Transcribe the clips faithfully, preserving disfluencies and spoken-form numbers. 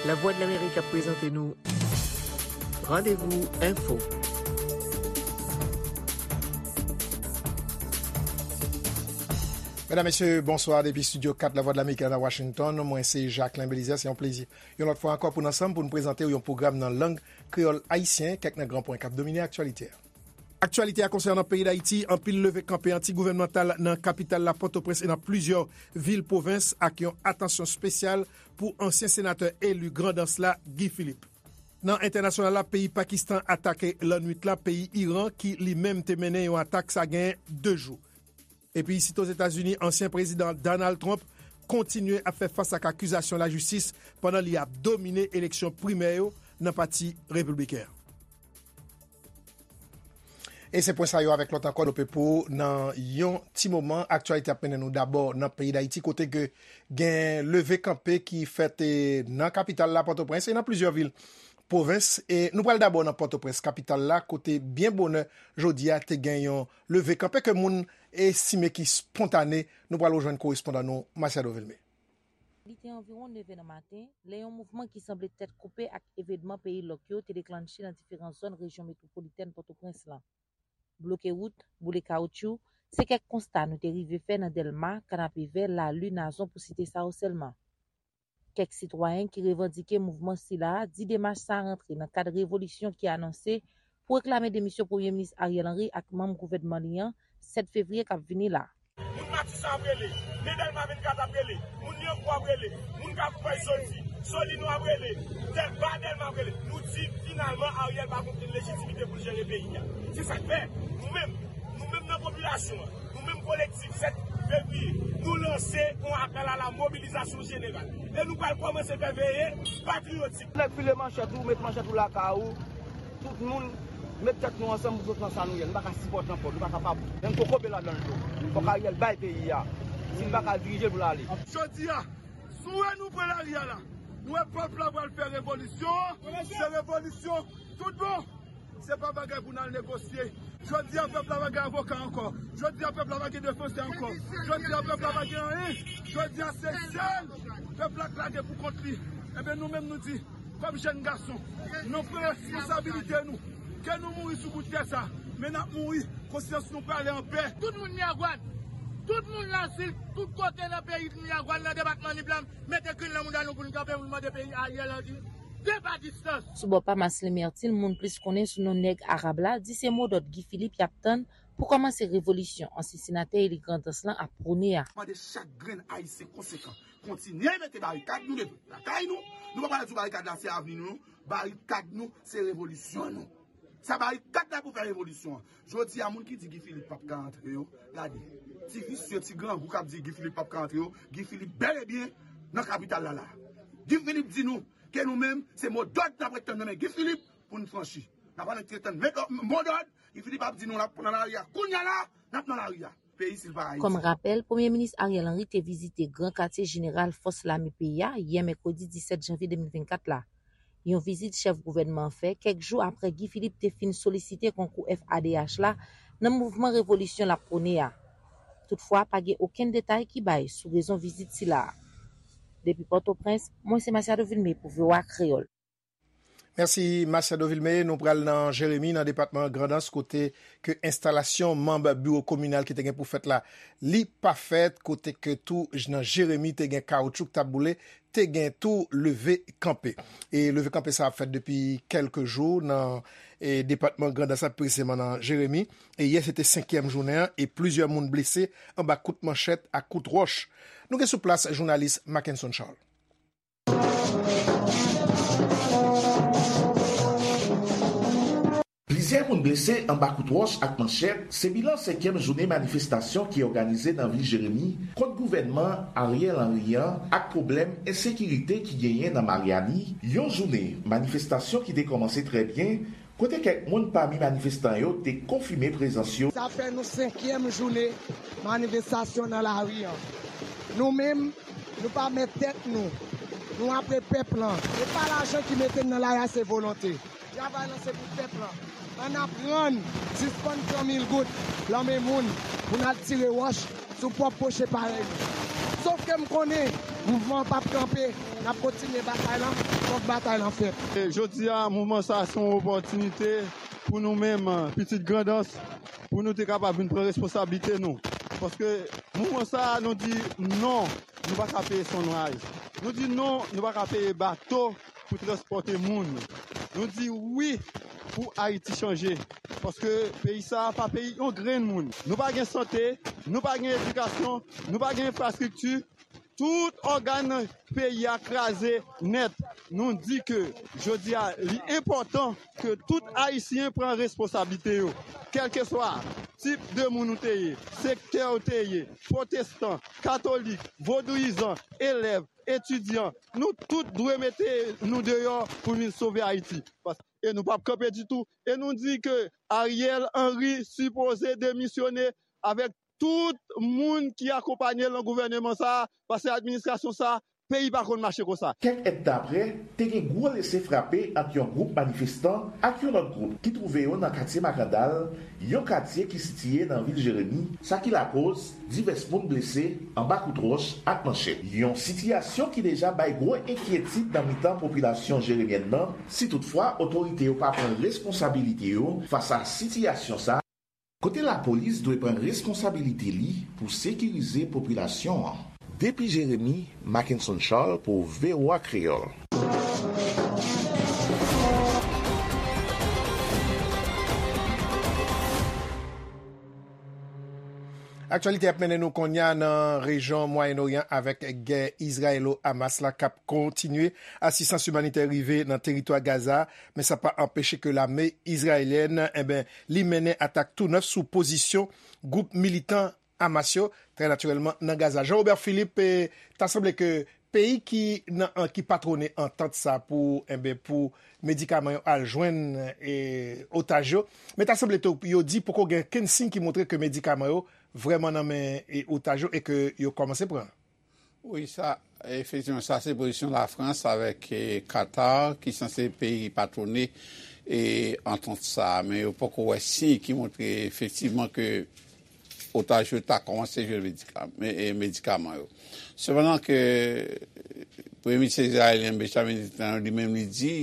Lavwadlamerik ap prezante nou Randevou Enfo. Medam, mesye, bonswa depi Estidyo kat Lavwadlamerik la nan Washington. Mwen se Jacquelin Belizaire. Se yon plezi yon lòt fwa ankò pou n ansanm pou n prezante w yon pwogram nan lang kreyòl ayisyen, kèk nan gran pwen k ap domine aktyalite a. Aktyalite a konsènan peyi Dayiti, anpil leve kanpe antigouvènmantal nan kapital la Pòtoprens e nan plizyè vil pwovens ak yon atansyon espesyal pou ansyen senatè eli Grandans la, Guy Philippe. Nan entènasyonal la, peyi Pakistan atake lannwit la peyi Iran ki li menm te mennen yon atak sa gen de jou. Epi isit Ozetazini, ansyen prezidan Donald Trump kontinye ap fè fas ak akizasyon lajistis pandan li ap domine eleksyon primè yo nan pati repibliken an. E se pwen sa yo avèk lòt ankò nou pe pou nan yon ti moman. Aktyalite ap mennen nou dabò nan peyi Dayiti, kote ke gen leve kanpe ki fèt, eh, nan kapital la, Pòtoprens, e nan plizyè vil pwovens. E nou pral dabò nan Pòtoprens, kapital la, kote byen bonè jodi a te gen yon leve kanpe ke moun estime ki spontane. Nou pral rejwenn korespondan nou, Masiado Vilmé. Li te anviwon nèv è nan maten, lè yon mouvman ki sanble tèt koupe ak evènman peyi lòk yo te deklanche nan diferan zòn rejyon metwopolitèn Pòtoprens lan. Bloke wout, boule kawotchou, se kèk konsta nou te rive fè nan Dèlma, Kanapevè, Lali, Nazon, pou site sa yo sèlman. Kèk sitwayen ki revandike mouvman sila a di demach sa a rantre nan kad revolisyon ki anonse pou reklame demisyon Premye Minis Ariel Henry ak manm gouvènman li an, sèt fevriye k ap vini la. Moun Matisan ap rele, men Dèlma vennkat ap rele, moun Lyankou ap rele, moun Kafou Pèch soti, Solino ap rele, Dèlma, Dèlma ap rele. Nou di, finalman, Ariel pa gen okenn lejitimite pou l jere peyi a. Se sa k fè, nou menm, nou menm nan popilasyon an, nou menm kolektif sèt fevriye, nou lanse yon apèl a la mobilizasyon jeneral. E nou pral kòmanse fè veye patriyotik. Nèg file manchèt ou, met manchèt ou lakay ou. Tout moun met tèt nou ansanm pou sot nan sa nou ye. Nou pa ka sipòte ankò, nou pa kapab. Menm kokobe ladan l tou. Fòk Ariel bay peyi a. Si l pa ka dirije l pou l ale. Jodi a, si w wè nou pran lari a la, nou wè pèp la pral fè revolisyon, se revolisyon tout bon. Se pa bagay pou n al negosye. Jodi a, pèp la pa gen avoka ankò. Jodi a, pèp la pa gen defansè ankò. Jodi a, pèp la pa gen anyen. Jodi a, se sèl pèp la k lage pou kont li. Ebyen, nou menm nou di, kòm jèn gason, nou pran responsabilite nou. Ke nou mouri sou bout tè sa, men n ap mouri, konsyans nou prale anpè. Tout moun Miragwàn, tout moun Lasil, tout kote nan peyi Miragwàn, nan depatman Nip la, mete grenn nan mouda nou pou n kanpe, pou n mande peyi Ariel Henry depa distans. Sou bò pa Marcelin Mertil, moun plis konnen sou non Nèg Arab la, di se modòd Guy Philippe y ap tann pou kòmanse revolisyon ansyen senatè eli Grandans lan ap pwone a. Mande chak grenn Ayisyen konsekan, kontinye mete barikad nou devan lakay nou. Nou pa pral di w barikad la se avni nou, non. Barikad nou se revolisyon nou. Sa barikad la pou fè revolisyon an. Jodi a, moun ki di Guy Philippe p ap ka antre yo, gade. Ti visye, ti grangou k ap di Guy Philippe p ap ka antre yo, Guy Philippe bèl e byen nan kapital la la. Guy Philippe di nou ke nou menm, se modòd n ap ret tann nan men Guy Philippe pou n franchi. N ap ret tann men, modòd, Guy Philippe ap di nou l ap nan lari a. Kounye a la, n ap nan lari a. Peyi silva Ayiti. Kòm rapèl, Premye Minis Ariel Henry te vizite Gran Katye Jeneral Fòs Lame peyi a yè mèkredi disèt janvye de mil vennkat la. Yon vizit chèf gouvènman an fè kèk jou aprè Guy Philippe te fin solisite konkou F A D H la nan mouvman revolisyon l ap pwone a. Toutfwa, pa gen okenn detay ki bay sou rezon vizit sila a. Depi Pòtoprens, mwen se Masiado Vilmé pou V O A Kreyòl. Mèsi, Masiado Vilmé. Nou pral nan Jeremi, nan depatman Grandans, kote ke enstalasyon manm biwo kominal ki te gen pou fèt la, li pa fèt, kote ke tou j-, nan Jeremi te gen kawoutchou k t ap boule, te gen tou leve kanpe. E leve kanpe sa ap fèt depi kèlke jou nan, e, depatman Grandans la, presizeman nan Jeremi. E yè se te senkyèm jounen an, e plizyè moun blese anba kout manchèt ak kout wòch. Nou gen sou plas jounalis Mackenson Charles. Plizyè moun blese anba kout wòch ak manchèt, se bilan senkyèm jounen manifestasyon ki òganize nan vil Jeremi kont gouvènman Ariel Henry an ak pwoblèm ensekirite ki genyen nan Maryani, yon jounen manifestasyon ki te kòmanse trè byen, kote kèk moun pami manifestan yo te konfime prezans yo. Sa fè nou senkyèm jounen manifestasyon nan lari an. Nou menm, nou pa mèt tèt nou. Nou apre pèp lan. E pa lajan ki mete n nan lari a, se volonte. Travay lan se pou pèp lan. Ann aprann sispann pran mil goud lan men moun pou n al tire wòch sou pwòp pwochen parèy nou. Sòf ke m konnen Mouvman an p ap kanpe, n ap kontinye batay lan, fòk batay lan fèt. E jodi a, mouvman sa a se yon opòtinite pou nou menm, pitit Grandans, pou nou te kapab vin pran responsablite nou. Paske mouvman sa a, nou di non, nou pa ka peye Sunrise. Nou di non, nou pa ka peye bato pou transpòte moun. Nou di wi pou Ayiti chanje. Paske peyi sa a pa peyi yon grenn moun. Nou pa gen sante, nou pa gen edikasyon, nou pa gen enfrastrikti. Tout ògàn peyi a kraze nèt. Nou di ke jodi a, li enpòtan ke tout Ayisyen pran responsablite yo. Kèlkeswa tip de moun ou te ye, sektè ou te ye, pwotestan, katolik, vodouyizan, elèv, etidyan, nou tout dwe mete nou deyò pou vin sove Ayiti. Pas-, e nou p ap kanpe ditou. E nou di ke Ariel Henry sipoze demisyone avèk tout moun ki akonpaye l nan gouvèneman sa a, paske administrasyon sa a, peyi pa konn mache konsa. Kèk èdtan aprè, te gen gwo lese frape ant yon gwoup manifestan ak yon lòt gwoup ki twouve yo nan katye Makandal, yon katye ki sitiye nan vil Jeremi, sa ki lakoz divès moun blese anba kout wòch ak manchèt. Yon sitiyasyon ki deja bay gwo enkyetid nan mitan popilasyon jeremyèn nan, si toutfwa otorite yo pa pran responsabilite yo fas a sitiyasyon sa, kote lapolis dwe pran responsabilite li pou sekirize popilasyon an. Depi Jeremi, Mackenson Charles pou V O A Kreyòl. Aktyalite ap mennen nou konnya nan rejyon Mwayen Oryan avèk gè Izrayelo-Hamas la k ap kontinye. Asistans imanitè rive nan teritwa Gaza, men sa pa anpeche ke lame izrayelyèn, enben, li mennen atak tou nèf sou pozisyon gwoup militan Hamas yo, trè natirèlman, nan Gaza. Jean Robert Philippe, eh, ta sanble ke peyi ki nan, an, ki patwone antant sa pou, enben, pou medikaman yo al jwenn, eh, otaj yo. Men ta sanble tou, yo di poko gen kenn siy ki montre ke medikaman yo vrèman nan men, eh, otaj yo e ke yo kòmanse pran. Wi, sa, efektivman, sa se pozisyon Lafrans avèk, eh, Qatar, ki sanse peyi ki patwone, eh, antant sa a. Men yo poko wè siy ki montre efektivman ke otaj yo ta kòmanse jwenn medika-, me-, e, medikaman yo. Sepandan ke Premye Minis izrayelyen Benjamin Netanyahu li menm li di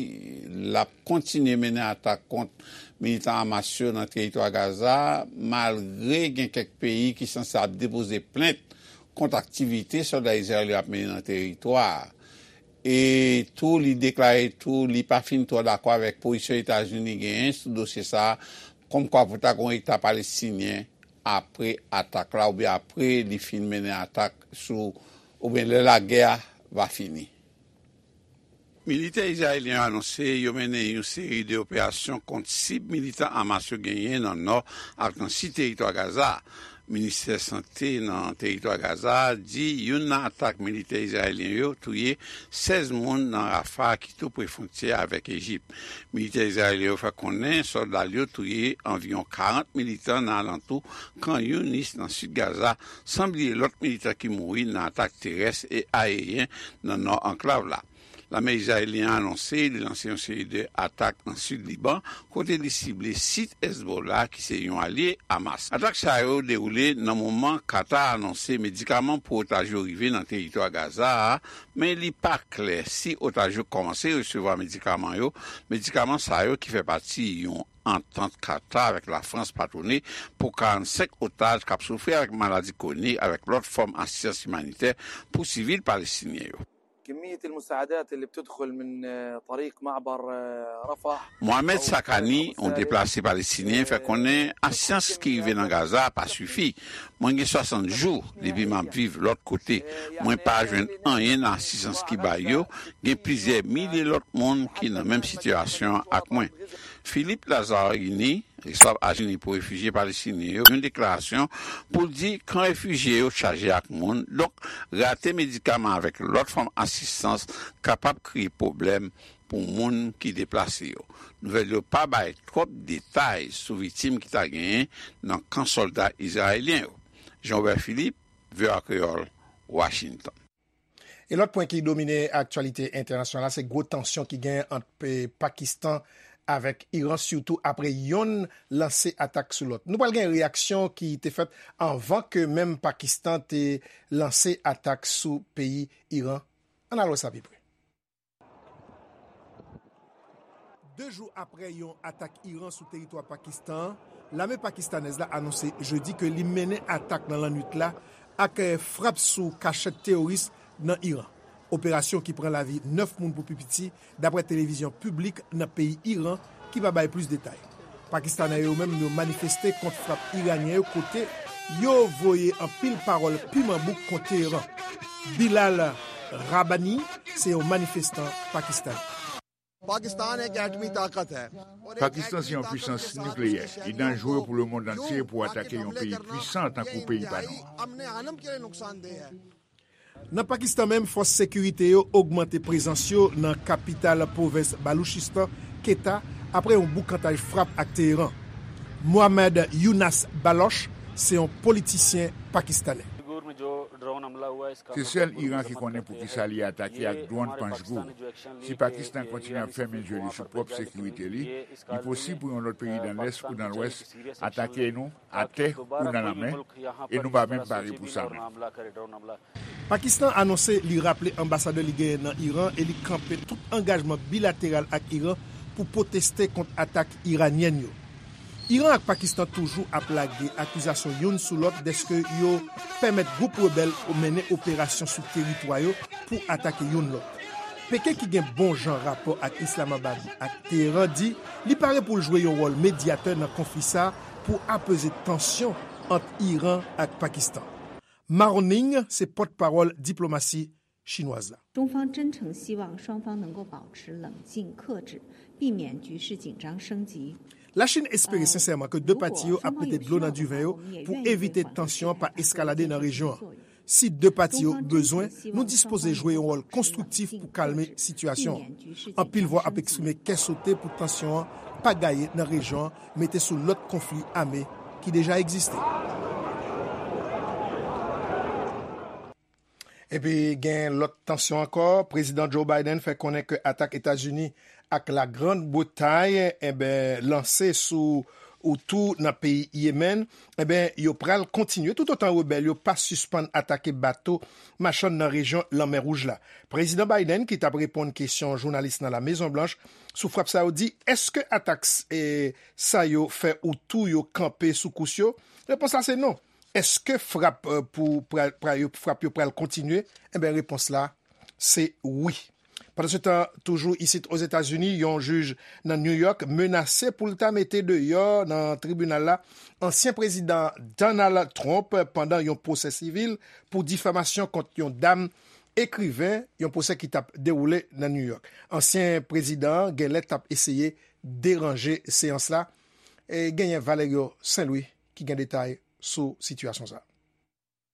l ap kontinye mennen atak kont militan Hamas yo nan teritwa Gaza, malgre gen kèk peyi ki sanse ap depoze plent kont aktivite sòlda Izrayèl yo ap mennen nan teritwa a. E tou, li deklare tou, li pa fin twò dakò avèk pozisyon Etazini genyen sou dosye sa a, kòmkwa pou ta gen yon Eta palestinyen apre atak la, oubyen apre li fin mennen atak sou, oubyen lè lagè a va fini. Militè izrayelyen yo anonse yo mennen yon seri de operasyon kont sib militan Hamas yo genyen nan nò ak nan sid teritwa Gaza a. Ministè Sante nan teritwa Gaza a di youn nan atak militè izrayelyen yo touye sèz moun nan Rafah ki tou pre fwontyè avèk Ejip. Militè izrayelyen yo fè konnen sòlda l yo touye anviwon karant militan nan alantou Khan Younis nan sid Gaza, san bliye lòt militan ki mouri nan atak terès e aeryen nan nò anklav la. Lame izrayelyen an anonse li lanse yon seri de atak nan sid Liban, kote li sible sit Hezbollah, ki se yon alye Hamas. Atak sa yo dewoule nan moman Qatar anonse medikaman pou otaj yo rive nan teritwa Gaza a, men li pa klè si otaj yo kòmanse resevwa medikaman yo. Medikaman sa yo ki fè pati yon antant Qatar avèk Lafrans patwone pou karannsenk otaj k ap soufri avèk maladi kwonik avèk lòt fòm asistans imanitè pou sivil palestinyen yo. كمية المساعدات اللي بتدخل من، آه، طريق معبر، آه، رفح. Mohamed Sakani, yon deplase palestinyen, fè konnen asistans ki rive nan Gaza a pa sifi. Mwen gen swasant jou depi m ap viv lòt kote. Mwen pa jwenn anyen nan asistans ki bay yo. Gen plizyè milye lòt moun ki nan menm sitiyasyon ak mwen. Philippe Lazzarini, responsab Ajans pou Refijye Palestinyen yo, yon deklarasyon pou l di kan refijye yo chaje ak moun, donk rate medikaman avèk lòt fòm asistans kapab kreye pwoblèm pou moun ki deplase yo. Nouvèl yo pa bay twòp detay sou viktim ki ta genyen nan kan sòlda izrayelyen yo. Jean Robert Philippe, V O A Kreyòl, Washington. E lòt pwen ki domine aktyalite entènasyonal la, se gwo tansyon ki gen ant pe-, Pakistan avèk Iran, sitou apre yonn lanse atak sou lòt. Nou pral gen reyaksyon ki te fèt anvan ke menm Pakistan te lanse atak sou peyi Iran. Ann al wè sa pi pre. De jou apre yon atak Iran sou teritwa Pakistan an, lame pakistanèz la anonse jedi ke li mennen atak nan lannwit la ak, eh, frap sou kachèt teworis nan Iran. Operasyon ki pran lavi nèf moun pou pi piti, dapre televizyon piblik nan peyi Iran, ki pa bay plis detay. Pakistanè yo menm yo manifeste kont frap iranyen yo kote yo voye anpil pawòl piman bouk kont Teheran. Bilal Rabbani se yon manifestan pakistanè. پاکستان ایک ایٹمی طاقت ہے۔ Pakistan se yon pwisans nikleyè. Li danjere pou lemonn antye pou atake yon peyi pwisan tankou peyi pa nou an. Nan Pakistan menm, fòs sekirite yo ogmante prezans yo nan kapital pwovens Baluchistan, Quetta, apre yon boukantaj frap ak Teheran. Mohammad Younas Baloch se yon politisyen pakistanè. Se sèl Iran ki konnen poukisa li atake ak dwòn Panjgul. Si Pakistan kontinye ap fèmen je li sou pwòp sekirite li, li posib pou yon lòt peyi nan Lès ou nan Lwès atake nou atè ou nan lanmè, e nou pa menm pare pou sa menm. Pakistan anonse li raple anbasadè li genyen nan Iran e li kanpe tout angajman bilateral ak Iran pou pwoteste kont atak iranyèn yo. Iran ak Pakistan toujou ap lage akizasyon youn sou lòt dèske yo pèmèt gwoup rebèl mennen operasyon sou teritwa yo pou atake youn lòt. Peken, ki gen bon jan rapò ak Islamabad ak Teheran, di li pare pou l jwe yon wòl medyatè nan konfli sa a pou apeze tansyon ant Iran ak Pakistan. Maroning se pòtpawòl diplomasi chinwaz la. 中方真诚希望双方能够保持冷静克制，避免局势紧张升级。 Lachin espere sensèman ke de pati yo ap mete dlo nan diven yo pou evite tansyon an pa eskalade nan rejyon an. Si de pati yo bezwen, nou dispoze jwe yon wòl konstriktif pou kalme sitiyasyon an. Anpil vwa ap eksprime kè sote pou tansyon an pa gaye nan rejyon an, mete sou lòt konfli ame ki deja egziste. Epi gen lòt tansyon ankò. Prezidan Joe Biden fè konnen ke atak Etazini ak Lagrand Bretay, enben, lanse sou Houthi nan peyi Yemen, enben, yo pral kontinye toutotan rebèl yo pa sispann atake bato machann nan rejyon Lanmè Wouj la. Prezidan Biden, ki t ap reponn kesyon jounalis nan La Mezon Blanch sou frap sa yo, di, èske atak, eh, sa yo fè Houthi yo kanpe sou kous yo? Repons la se non. Èske frap, eh, pou, pra, pra, yo, frap yo pral kontinye? Enben, repons la, se wi. Pandansetan, toujou isit Ozetazini, yon jij nan New York menase pou l ta mete deyò nan tribinal la ansyen prezidan Donald Trump pandan yon pwosè sivil pou difamasyon kont yon dam ekriven, yon pwosè ki t ap dewoule nan New York. Ansyen prezidan an genlè t ap eseye deranje seyans la. E genyen Valerio Saint Louis ki gen detay sou sitiyasyon sa a.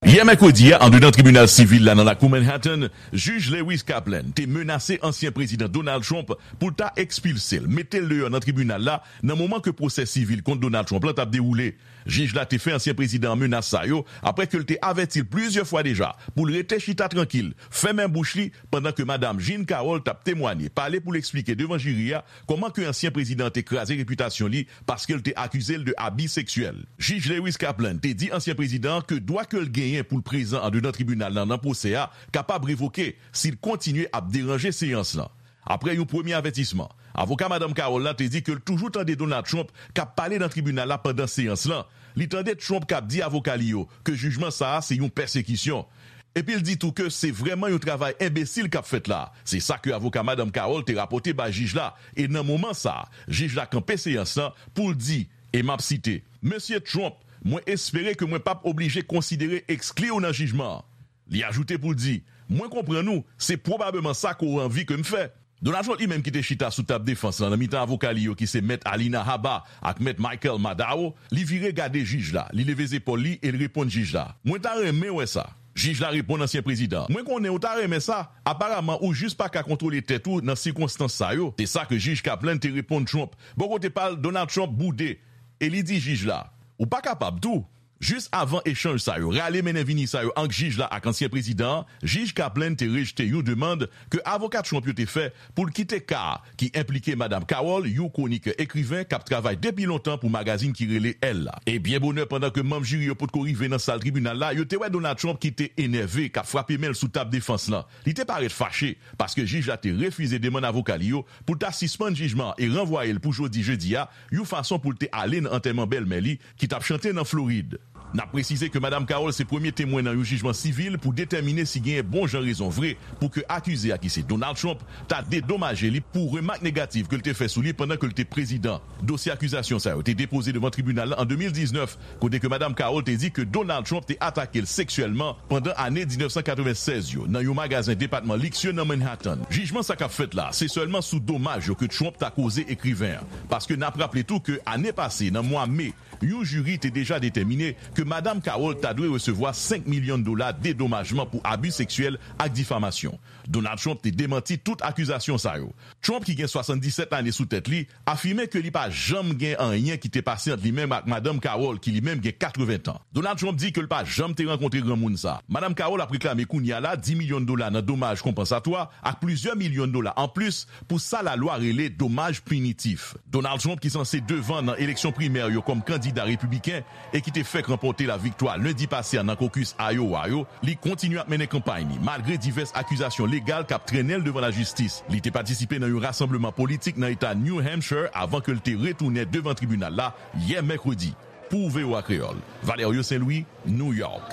Yè mèkredi a, anndedan tribinal sivil la nan lakou Manhattan, jij Lewis Kaplan te menase ansyen prezidan Donald Trump pou l ta ekspilse l, mete l deyò nan tribinal la, nan moman ke pwosè sivil kont Donald Trump lan t ap dewoule. Jij la te fè ansyen prezidan an menas sa yo, apre ke l te avèti l plizyè fwa deja pou l rete chita trankil, fèmen bouch li, pandan ke madanm Jean Carroll t ap temwanye, pale pou l eksplike devan jiri a kòman ke ansyen prezidan an te kraze repitasyon li paske l te akize l de abi seksyèl. Jij Lewis Kaplan te di ansyen prezidan an ke dwa ke l genyen pou l prezan andedan tribinal lan nan pwosè a kapab revoke si l kontinye ap deranje seyans lan. Apre yon premye avètisman, avoka madanm Carroll la te di ke l toujou tande Donald Trump k ap pale nan tribinal la pandan seyans lan. Li tande Trump k ap di avoka li yo ke jijman sa a se yon pèsekisyon. Epi l di tou ke se vrèman yon travay enbesil k ap fèt la. Se sa ke avoka madanm Carroll te rapòte bay jij la, e nan moman sa a, jij la kanpe seyans lan pou l di, e m ap site, Mesye Trump, mwen espere ke mwen p ap oblije konsidere ekskli w nan jijman an. Li ajoute pou l di, Mwen konprann ou, se pwobableman sa ke w anvi ke m fè. Donald Trump li menm ki te chita sou tab defans lan nan mitan avoka li yo ki se Mèt Alina Habba ak Mèt Michael Maddaw, li vire gade jij la, li leve zepòl li e l reponn jij la, Mwen ta renmen wè sa. Jij la reponn ansyen prezidan an, Mwen konnen w ta renmen sa. Aparaman ou jis pa ka kontwole tèt ou nan sikonstans sa yo. Se sa ke jij Kaplan te reponn Trump. Bò kote pa l, Donald Trump boude e li di jij la, Ou pa kapab tou. Jis avan echanj sa yo, rale mennen vini sa yo ant jij la ak ansyen prezidan an, jij Kaplan te rejte yon demann ke avoka Trump yo te fè pou l kite ka a ki enplike Madanm Carroll, yon kwonikè ekriven k ap travay depi lontan pou magazin ki rele Elle la. E byen bonè, pandan ke manm jiri yo potko rive nan sal tribinal la, yo te wè Donald Trump ki te enève, k ap frape men l sou tab defans lan. Li te parèt fache, paske jij la te refize demann avoka li yo pou l ta sispann jijman an e ranvwaye l pou jodi jedi a, yon fason pou l te ale nan antèman bèlmè li ki t ap chante nan Florid. N ap presize ke Madanm Carroll se premye temwen nan yon jijman sivil pou detèmine si genyen bon jan rezon vre pou ke akize a, ki se Donald Trump, ta dedomaje li pou remak negatif ke l te fè sou li pandan ke l te prezidan. Dosye akizasyon sa yo te depoze devan tribinal la an de mil diznèf, kote ke Madanm Carroll te di ke Donald Trump te atake l seksyèlman pandan ane diznèf san katreven sèz yo nan yon magazen depatman liksye nan Manhattan. Jijman sa k ap fèt la, se sèlman sou domaj yo ke Trump ta koze ekriven an, paske n ap raple tou ke ane pase, nan mwa me, yon jiri te deja detèmine ke Madanm Carroll ta dwe resevwa senk milyon dola dedomajman pou abi seksyèl ak difamasyon. Donald Trump te demanti tout akizasyon sa yo. Trump, ki gen swasanndisèt lane sou tèt li, afime ke li pa janm gen anyen ki te pase ant li menm ak Madanm Carroll, ki li menm gen katreven tan. Donald Trump di ke l pa janm te rankontre granmoun sa. Madanm Carroll ap reklame kounye a la dis milyon dola nan domaj konpansatwa ak plizyè milyon dola anplis pou sa lalwa rele domaj pinitif. Donald Trump, ki sanse devan nan eleksyon primè yo kòm kandida repibliken e ki te fèk ranpòte laviktwa lendi pase a nan kokis Iowa yo, li kontinye ap mennen kanpay li, malgre divès akizasyon legal k ap trennen l devan lajistis. Li te patisipe nan yon rasanbleman politik nan eta New Hampshire avan ke l te retounen devan tribinal la yè mèkredi. Pou V O A Kreyòl, Valerio Saint-Louis, New York.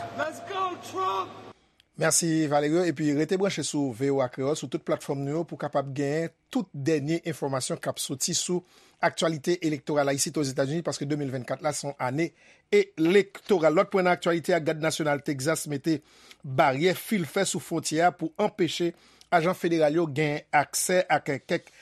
Mèsi, Valerio. Epi rete branche sou V O A Kreyòl, sou tout platfòm nou yo, pou w kapab genyen tout dènye enfòmasyon k ap soti sou aktyalite elektoral la isit Ozetazini, paske de mil vennkat la se yon ane elektoral. Lòt pwen nan aktyalite a, Gad Nasyonal Texas mete baryè fil fè sou fwontyè a pou anpeche ajan federal yo gen aksè ak kèk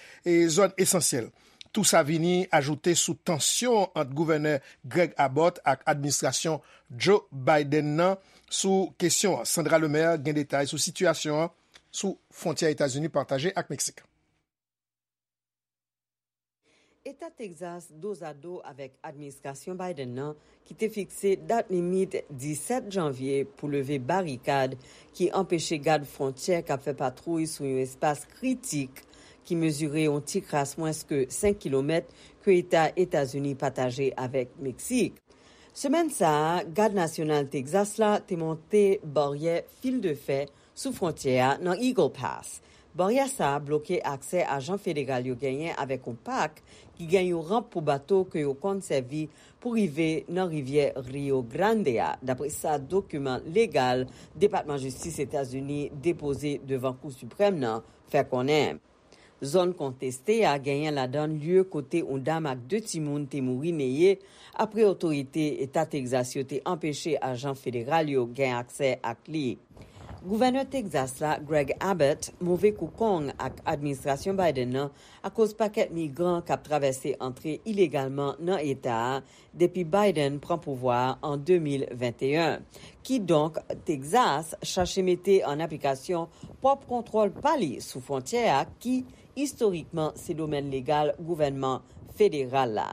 zòn esansyèl. Tou sa vini ajoute sou tansyon ant gouvènè Greg Abbott ak administrasyon Joe Biden nan sou kesyon an. Sandra Lemaire gen detay sou sitiyasyon an sou fwontyè Etazini pataje ak Meksik. Eta Texas dozado avèk administrasyon Biden nan ki te fikse dat limit disèt janvye pou leve barikad ki anpeche gad fwontyè k ap fè patwouy sou yon espas kritik ki mezire yon ti kras mwens ke senk kilomèt ke eta Etazini pataje avèk Meksik. Semèn sa a, Gad Nasyonal Texas la te monte baryè fil de fè sou fwontyè a nan Eagle Pass. Baryè sa a bloke aksè ajan federal yo genyen avèk yon pak ki gen yon ranp pou bato ke yo konn sèvi pou rive nan rivyè Rio Grande a, dapre sa dokiman legal Depatman Jistis Etazini depoze devan Kou Siprèm nan fè konnen. Zòn konteste a genyen ladan l lye kote yon dam ak de timoun te mouri neye apre otorite Eta Texas yo te anpeche ajan federal yo gen aksè ak li. Gouvènè Texas la, Greg Abbott, move kou kong ak administrasyon Biden nan akoz pakèt migran k ap travèse antre ilegalman nan eta a depi Biden pran pouvwa a an de mil venteyen. Kidonk, Texas chache mete an aplikasyon pwòp kontwòl pa li sou fwontyè a ki, istorikman, se domèn legal gouvènman federal la.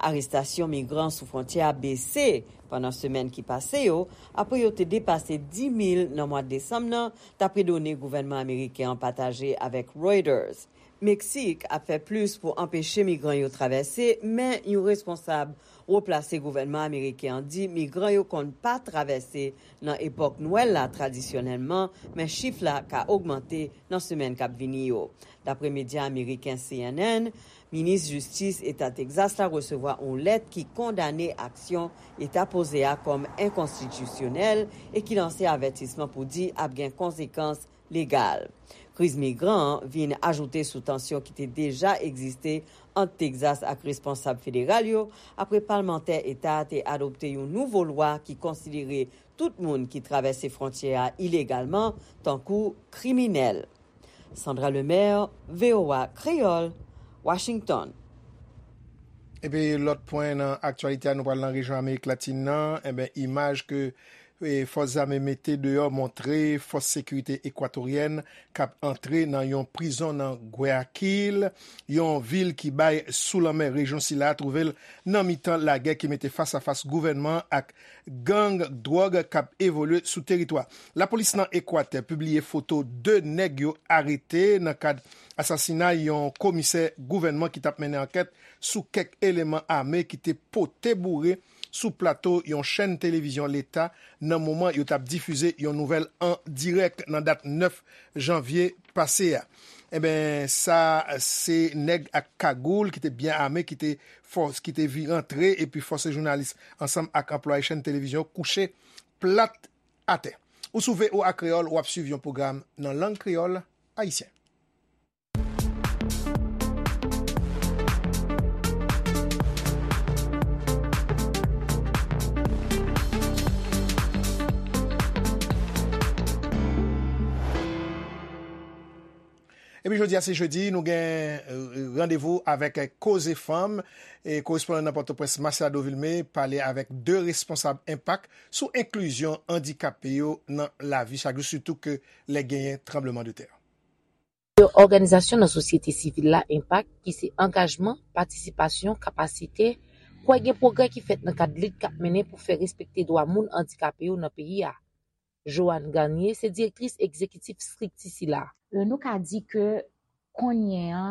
Arestasyon migran sou fwontyè a bese pandan semèn ki pase yo, apre yo te depase dis mil nan mwa desanm nan, dapre done gouvènman ameriken an pataje avèk Reuters. Meksik ap fè plis pou anpeche migran yo travèse, men yon responsab wo plase gouvènman ameriken an di migran yo konn pa travèse nan epòk Nwèl la tradisyonèlman, men chif la ka ogmante nan semèn k ap vini yo. Dapre medya ameriken C N N, minis jistis eta Texas la resevwa yon lèt ki kondane aksyon eta poze a kòm enkonstitisyonèl e ki lanse avètisman pou di ap gen konsekans legal. Kriz migran an vin ajoute sou tansyon ki te deja egziste ant Texas ak responsab federal yo, apre palmantè eta a te adopte yon nouvo lwa ki konsidere tout moun ki travèse fwontyè a ilegalman tankou kriminèl. Sandra Lemaire, V O A Kreyòl, Washington. Epi lòt pwen nan aktyalite a, nou pral nan rejyon Amerik Latin nan. Enben, imaj ke e, fòs zame mete deyò montre fòs sekirite ekwatoryèn k ap antre nan yon prizon nan Guayaquil, yon vil ki bay sou lanmè rejyon sila a twouve l nan mitan lagè ki mete fas a fas gouvènman an ak gang dwòg k ap evolye sou teritwa. Lapolis nan Ekwatè pibliye foto de nèg yo arete nan kad asasinay yon komisè gouvènman ki t ap mennen ankèt sou kèk eleman ame ki te pote boure sou plato yon chèn televizyon leta nan moman yo t ap difize yon nouvèl an dirèk nan dat nèf janvye pase a. Enben, sa se nèg ak kagoul ki te byen ame ki te fòs, ki te vi rantre epi fòse jounalis ansanm ak anplwaye chèn televizyon kouche plat atè. Ou sou V O A Kreyòl, w ap swiv yon pwogram nan lang kreyòl ayisyen. Epi jodi a se jedi, nou gen, e, randevou avèk, e, Koze Fanm. E korespondan nan Pòtoprens, Masiado Vilmé, pale avèk de responsab Enpak sou enklizyon andikape yo nan lavi chak jou, sitou ke lè genyen tranblemanntè. Yon òganizasyon nan sosyete sivil la, Enpak, ki se angajman, patisipasyon, kapasite, kwè gen pwogrè ki fèt nan kad lit k ap mennen pou fè respekte dwa moun andikape yo nan peyi a. Joanne Garnier se direktris egzekitif estrikti sila. E, nou ka di ke kounye a,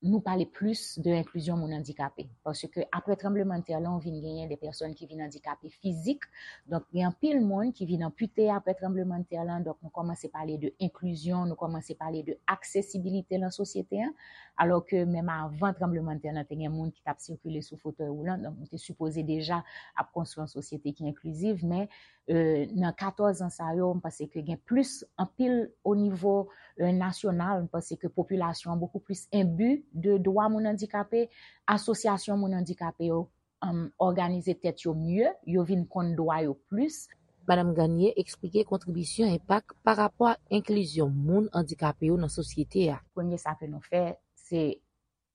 nou pale plis de enklizyon moun andikape. Paske apre tranblemanntè lan, ou vin genyen de pèsòn ki vin andikape fizik. Donk, gen anpil moun ki vin anpite apre tranblemanntè lan. Donk, nou kòmanse pale de enklizyon, nou kòmanse pale de aksesibilite nan sosyete an. Alò ke menm avan tranblemanntè lan, te gen moun ki t ap sikile sou fotèy woulan. Donk, nou te sipoze deja ap konstwi yon sosyete ki enkliziv, men e, nan katòz an sa yo, m panse ke gen plis anpil o nivo, e, nasyonal. M panse ke popilasyon an bokou plis enbi de dwa moun andikape. Asosyasyon moun andikape yo, em, òganize tèt yo mye, yo vin konn dwa yo plis. Madanm Garnier eksplike kontribisyon Enpak pa rapò ak enklizyon moun andikape yo nan sosyete a. Premye sa ke nou fè, se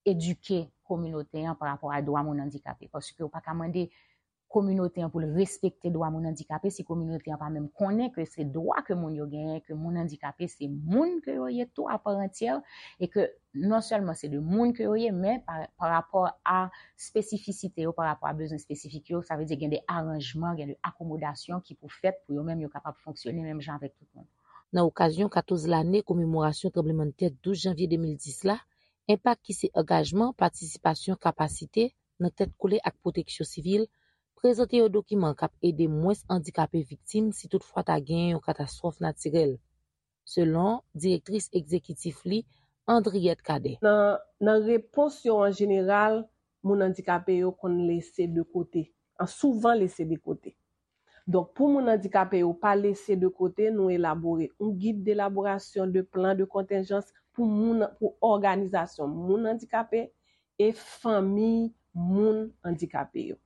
edike kominote an pa rapò a dwa moun andikape. Paske ou pa ka mande kominote an pou l respekte dwa moun andikape si kominote an pa menm konnen ke se dwa ke moun yo genyen, ke moun andikape se moun ke yo ye tou a pa antyè, e ke non sèlman se de moun ke yo ye, men pa, pa rapò a espesifisite yo, pa rapò a bezwen espesifik yo, sa vle di gen de aranjman, gen de akomodasyon ki pou fèt pou yo menm yo kapab fonksyone menm jan avèk tout moun. Nan okazyon katòz lane komemorasyon tranblemanntè douz janvye de mil dis la, Enpak ki se angajman, patisipasyon, kapasite nan tèt kole ak pwoteksyon sivil, prezante yon dokiman k ap ede mwens andikape viktim si toutfwa ta genyen yon katastwòf natirèl, selon direktris egzekitif li, Andriette Cadet. Nan, nan repons yo an jeneral, moun andikape yo konn lese de kote, an souvan lese de kote. Donk, pou moun andikape yo pa lese de kote, nou elabore yon gid delaborasyon de plan de kontenjans pou moun, pou òganizasyon moun andikape e fanmi moun andikape yo.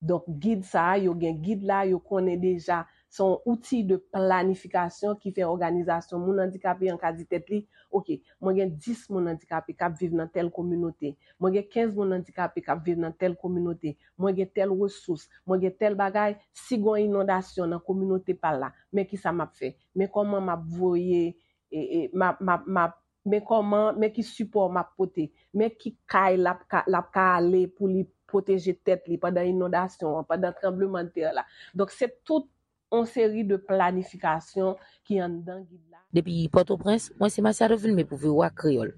Donk, gid sa a, yo gen gid la, yo konnen deja, se yon outi de planifikasyon ki fè òganizasyon moun andikape an ka di tèt li, oke, mwen gen dis moun andikape k ap viv nan tèl kominote, mwen gen kenz moun andikape k ap viv nan tèl kominote, mwen gen tèl resous, mwen gen tèl bagay, si gen yon inondasyon nan kominote pa l la, men kisa m ap fè? Men kòman m ap voye, e, e, m ap, m ap, m ap, men kòman, men ki sipò m ap pote, men ki kay l ap ka, l ap ka ale pou li pwoteje tèt li pandan inondasyon an, pandan tranblemanntè la. Donk, se tout yon seri de planifikasyon ki anndan gid la. Depi Pòtoprens, mwen se Masiado Vilmé pou V O A Kreyòl.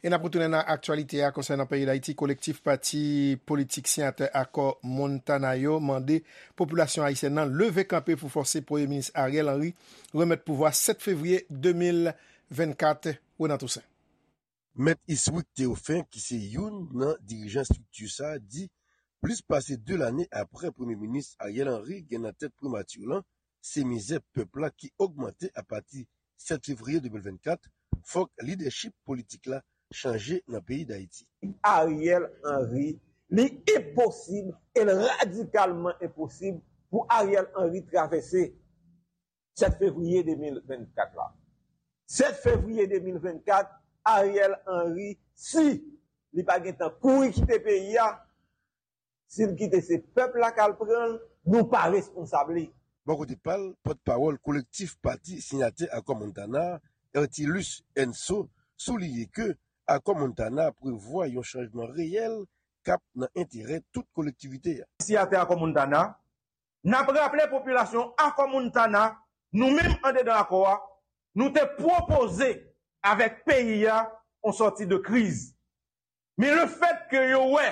E n ap retounen nan aktyalite a konsènan peyi Dayiti. Kolektif pati politik siyatè akò Montana yo mande popilasyon ayisyèn nan leve kanpe pou fòse Premye Minis Ariel Henry remèt pouvwa sèt fevriye de mil vennkat. Renan Toussaint. Mèt Iswick Théophin, ki se youn nan dirijan estrikti sa a, di plis pase de lane apre Premye Minis Ariel Henry gen nan tèt primati lan, se mizè pèp la ki ogmante apati sèt fevriye de mil vennkat, fòk lidèchip politik la chanje nan peyi Dayiti. Ariel Henry, li enposib, e l radikalman enposib pou Ariel Henry travèse sèt fevriye de mil vennkat la. Sèt fevriye de mil vennkat, Ariel Henry, si li pa gentan kouri kite peyi a, si l kite, se pèp la k al pran l, nou pa responsab li. Bò kote pa l, pòtpawòl kolektif pati siyatè akò Montana, Ertilus Enso, souliye ke akò Montana prevwa yon chanjman reyèl k ap nan enterè tout kolektivite a. Siyatè akò Montana, n ap raple popilasyon akò Montana, nou menm andedan akò a, nou te pwopoze avèk peyi a yon sòti de kriz. Men lefètke yo wè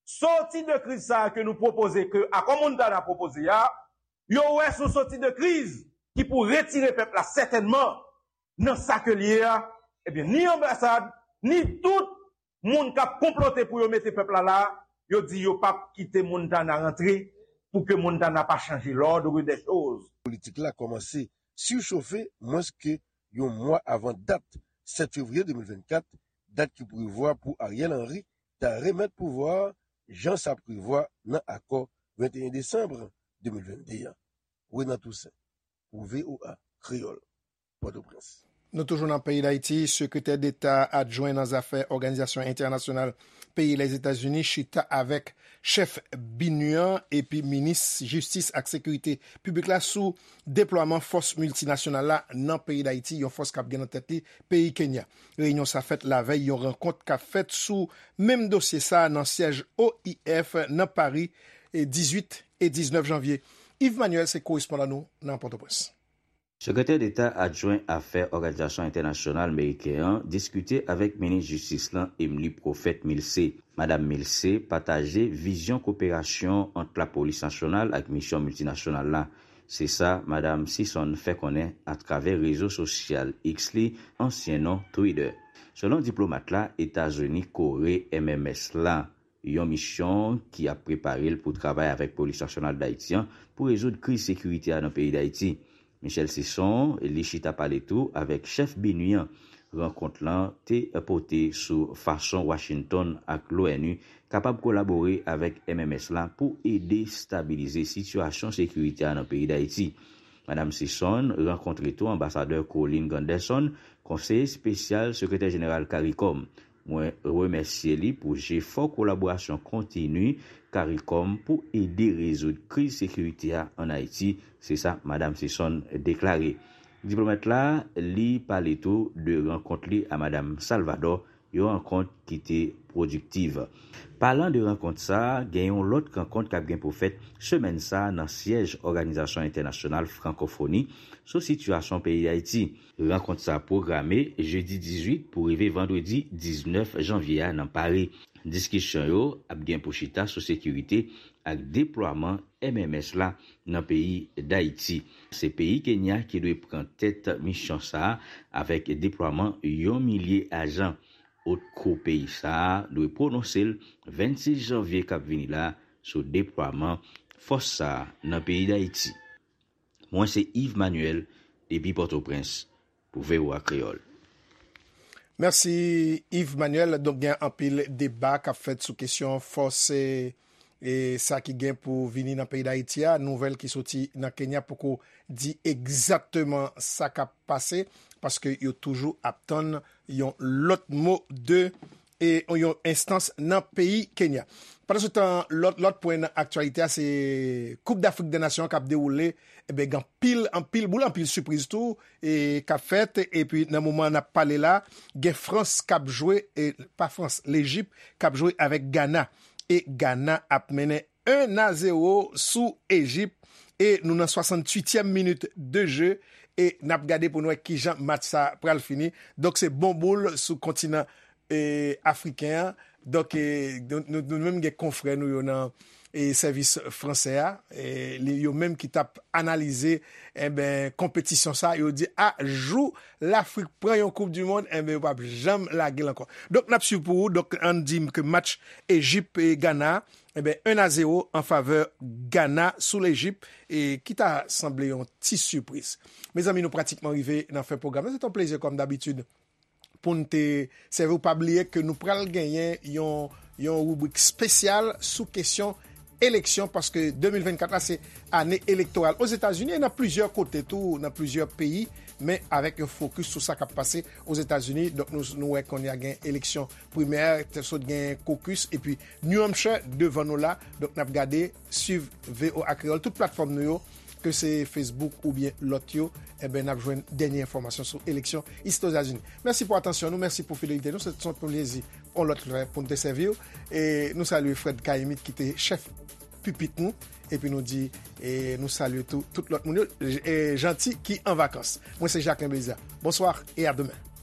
sòti de kriz sa a ke nou pwopoze, ke akò Montana pwopoze a, yo wè se yon sòti de kriz ki pou retire pèp la sètènman nan sa ke l ye a, ebyen, ni anbasad, ni tout moun k ap konplote pou yo mete pèp la la, yo di yo p ap kite Montana rantre pou ke Montana pa chanje l'ordre des choses. Politik la kòmanse sichofe mwens ke yon mwa avan dat sèt fevriye de mil vennkat, dat ki prevwa pou Ariel Henry ta remèt pouvwa a jan sa prevwa nan akò venteyen desanm de mil vennde an. Renan Toussaint, pou V O A Kreyòl, Pòtoprens. Nou toujou nan peyi Dayiti, Sekretè Deta adjwen nan zafè òganizasyon entènasyonal peyi Lèzetazini chita avèk chèf BINUH an epi minis jistis ak sekirite piblik la sou deplwaman fòs miltinasyonal la nan peyi Dayiti, yon fòs k ap gen nan tèt li peyi Kenya. Reyinyon sa fèt lavèy yon rankont k ap fèt sou menm dosye sa nan syèj O I F nan Pari, e dizuit e diznèf janvye. Yves Manuel se korespondan nou nan Pòtoprens. Sekretè Deta adjwen afè òganizasyon entènasyonal meriken an diskite avèk minis jistis lan Emmelie Prophète Milcé. Madam Milcé pataje vizyon koperasyon ant lapolis nasyonal ak misyon miltinasyonal la. Se sa Madam Sison fè konnen atravè rezo sosyal X li, ansyen non Twitter. Selon diplomat la, Etazini kore M M S la, yon misyon ki ap prepare l pou travay avèk Polis Nasyonal Dayiti an pou rezoud kriz sekirite a nan peyi Dayiti. Michel Sison, li chita pale tou avèk chèf BINUH an. Rankont lan te pote sou fason Washington ak l'O N U kapab kolabore avèk M M S la pou ede stabilize sitiyasyon sekirite a nan peyi Dayiti. Madam Sison rankontre tou anbasadè Colin Gunderson, konseye espesyal sekretè jeneral CARICOM. Mwen remèsye li pou jefò kolaborasyon kontini CARICOM pou ede rezoud kriz sekirite a ann Ayiti, se sa Madam Sison deklare. Diplomat la, li pale tou de rankont li a Madam Salvador, yon rankont ki te pwodiktiv. Palan de rankont sa a, gen yon lòt rankont k ap gen pou fèt semèn sa a nan syèj Òganizasyon Entènasyonal Frankofoni sou sitiyasyon peyi Dayiti. Rankont sa a pwograme jedi dizuit pou rive vandredi diznèf janvye a nan Pari. Diskisyon yo ap gen pou chita sou sekirite ak deplwaman M M S la nan peyi Dayiti. Se peyi Kenya ki dwe pran tèt misyon sa a avèk deplwaman yon milye ajan. Otkou peyi sa a dwe pwononse l vennsis janvye k ap vini la sou deplwaman fòs sa a nan peyi Dayiti. Mwen se Yves Manuel depi Pòtoprens pou V O A Kreyòl. Mèsi Yves Manuel. Donk gen anpil deba k ap fèt sou kesyon fòs e, e sa ki gen pou vini nan peyi Dayiti a. Nouvèl ki soti nan Kenya poko di egzakteman sa k ap pase, paske yo toujou ap tann yon lòt mo de e yon enstans nan peyi Kenya. Pandansetan, lòt lòt pwen nan aktyalite a se Koup Dafrik dè Nasyon an k ap dewoule. Ebyen, gen anpil, anpil boul, anpil sipriz tou e k ap fèt. Epi nan moman n ap pale la, gen Frans k ap jwe, e pa Frans, Lejip k ap jwe avèk Gana. E Gana ap mennen en a zewo sou Ejip. E nou nan swasanntuityèm minit de je. E n ap gade pou n wè kijan match sa pral fini. Donk se bon boul sou kontinan e, afriken an. Donk, e, nou, nou, nou menm gen konfrè nou yo nan e, sèvis fransè a, e, li, yo menm ki t ap analize enben, konpetisyon sa, yo di, a, jou Lafrik pran yon Koup di Mond, enben, yo p ap janm lage l ankò. Donk, n ap swiv pou ou. Donk, ann di m ke match Ejip e Gana, enben, en a zewo an favè Gana sou Lejip, e ki ta sanble yon ti sipriz. Mezanmi, nou pratikman rive nan fen pwogram nan. Se t on plezi, kòm dabitid, pou n te sèvi w. Pa bliye ke nou pral genyen yon, yon ribrik espesyal sou kesyon eleksyon, paske de mil vennkat la se ane elektoral Ozetazini e nan plizyè kote tou, nan plizyè peyi, men avèk yon fokis sou sa k ap pase Ozetazini. Donk, nou, nou wè kounye a gen eleksyon primè, te sot gen kokis, epi New Hampshire devan nou la. Donk, n ap gade, swiv V O A Kreyòl, tout platfòm nou yo, ke se Facebook oubyen lòt yo, eben, n ap jwenn dènye enfòmasyon sou eleksyon isi Ozetazini. Mèsi pou atansyon nou, mèsi pou fidelite nou. Se t on plezi yon lòt lè pou n te sèvi w. E nou salye Fred Caïmite ki te chèf pipit nou. Epi nou di, e nou salye tou, tout lòt moun yo, e Janti ki an vakans. Mwen se Jacquelin Belizaire. Bonsoir et à demain.